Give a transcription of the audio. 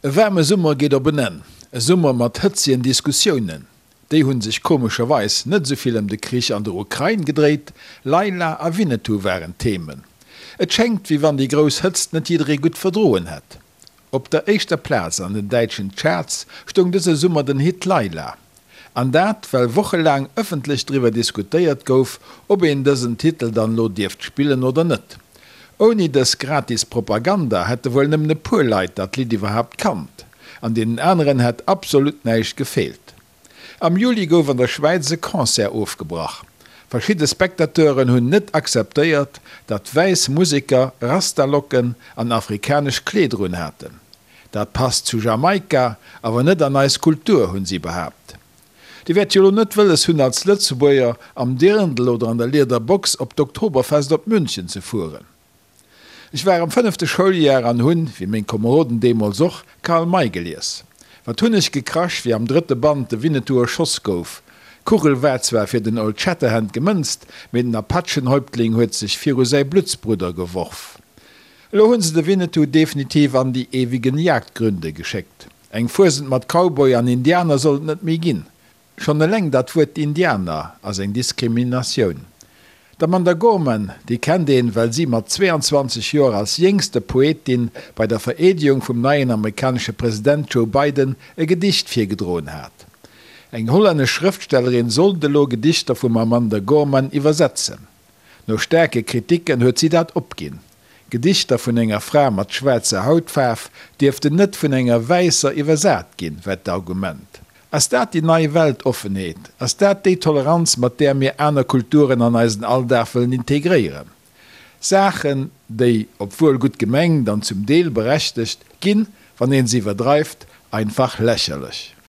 E waarme Summer geet op en Enn. E Summer mat hëtzegen Diskussiounen. Déi hunn sech komescherweis net esou vill ëm de Krich an der Ukrain gedréit, Laila a Winnetou waren d'Themen. Et schéngt, wéi wann déi grouss Hëtzt net jidderee gutt verdroen hätt. Op der éischter Plaz an den däitschen Charts stoung dëse Summer den Hit Laila. An dat, well wochelaang ëffentlech driwwer diskutéiert gouf, ob een dësen Titel dann lo dierft spillen oder net. Ouni dës gratis Propaganda hätte wuel nëmmen e puer Leit dat Lidd iwwerhaapt kannt. An deenen aneren hätt absolut näischt gefeelt. Am Juli gouf an der Schwäiz e Concert ofgebrach. Verschidde Spectateuren hunn net akzeptéiert, datt wäiss Museker Rastalocken an afrikanesch Kleeder un haten. Dat passt zu Jamaika, awer net an eis Kultur, hunn si behaapt. Dir wäert jo lo net wëlles hunn, als Lëtzebuerger am Dirndl oder an der Liederbox op d'Oktoberfest op München ze fueren. Ech war am fënnefte Schouljar an hunn, wéi meng Komeroden deemools och, Karl May gelies. Wat hunn ech gekrasch, wéi am drëtte Band de Winnetou erschoss gouf. D'Kugel war zwar fir den Old Shatterhand gemënzt, mee den Apachenhäuptling huet sech viru säi Bluttsbrudder geworf. Elo hunn se de Winnetou definitiv an die ewigen Jagdgründe geschéckt. Eng Fuesent mat Cowboy an Indianer soll et net méi ginn. Schonn eleng dat Wuert Indianer ass eng Diskriminatioun. D'Amanda Gorman, déi kennt een, well si mat 22 Joer als jéngste Poetin bei der Vereedegung vum neien amerikanesche President Joe Biden e Gedicht virgedroen hat. Eng hollännesch Schrëftstellerin sollt elo Gedichter vum Amanda Gorman iwwersetzen. No staarke Kriticken huet si dat opginn. Gedichter vun enger Fra mat schwaarzer Hautfaarf dierften net vun enger wäisser iwwersat ginn, war d'Argument. Ass dat déi nei Weltoffenheet? Ass dat déi Toleranz, mat där mir aner Kulturen an eisen Alldag wëllen integréieren? Saachen, déi, obwuel gutt gemengt an zum Deel berechtegt, ginn, wann een se iwwerdreift, einfach lächerlech.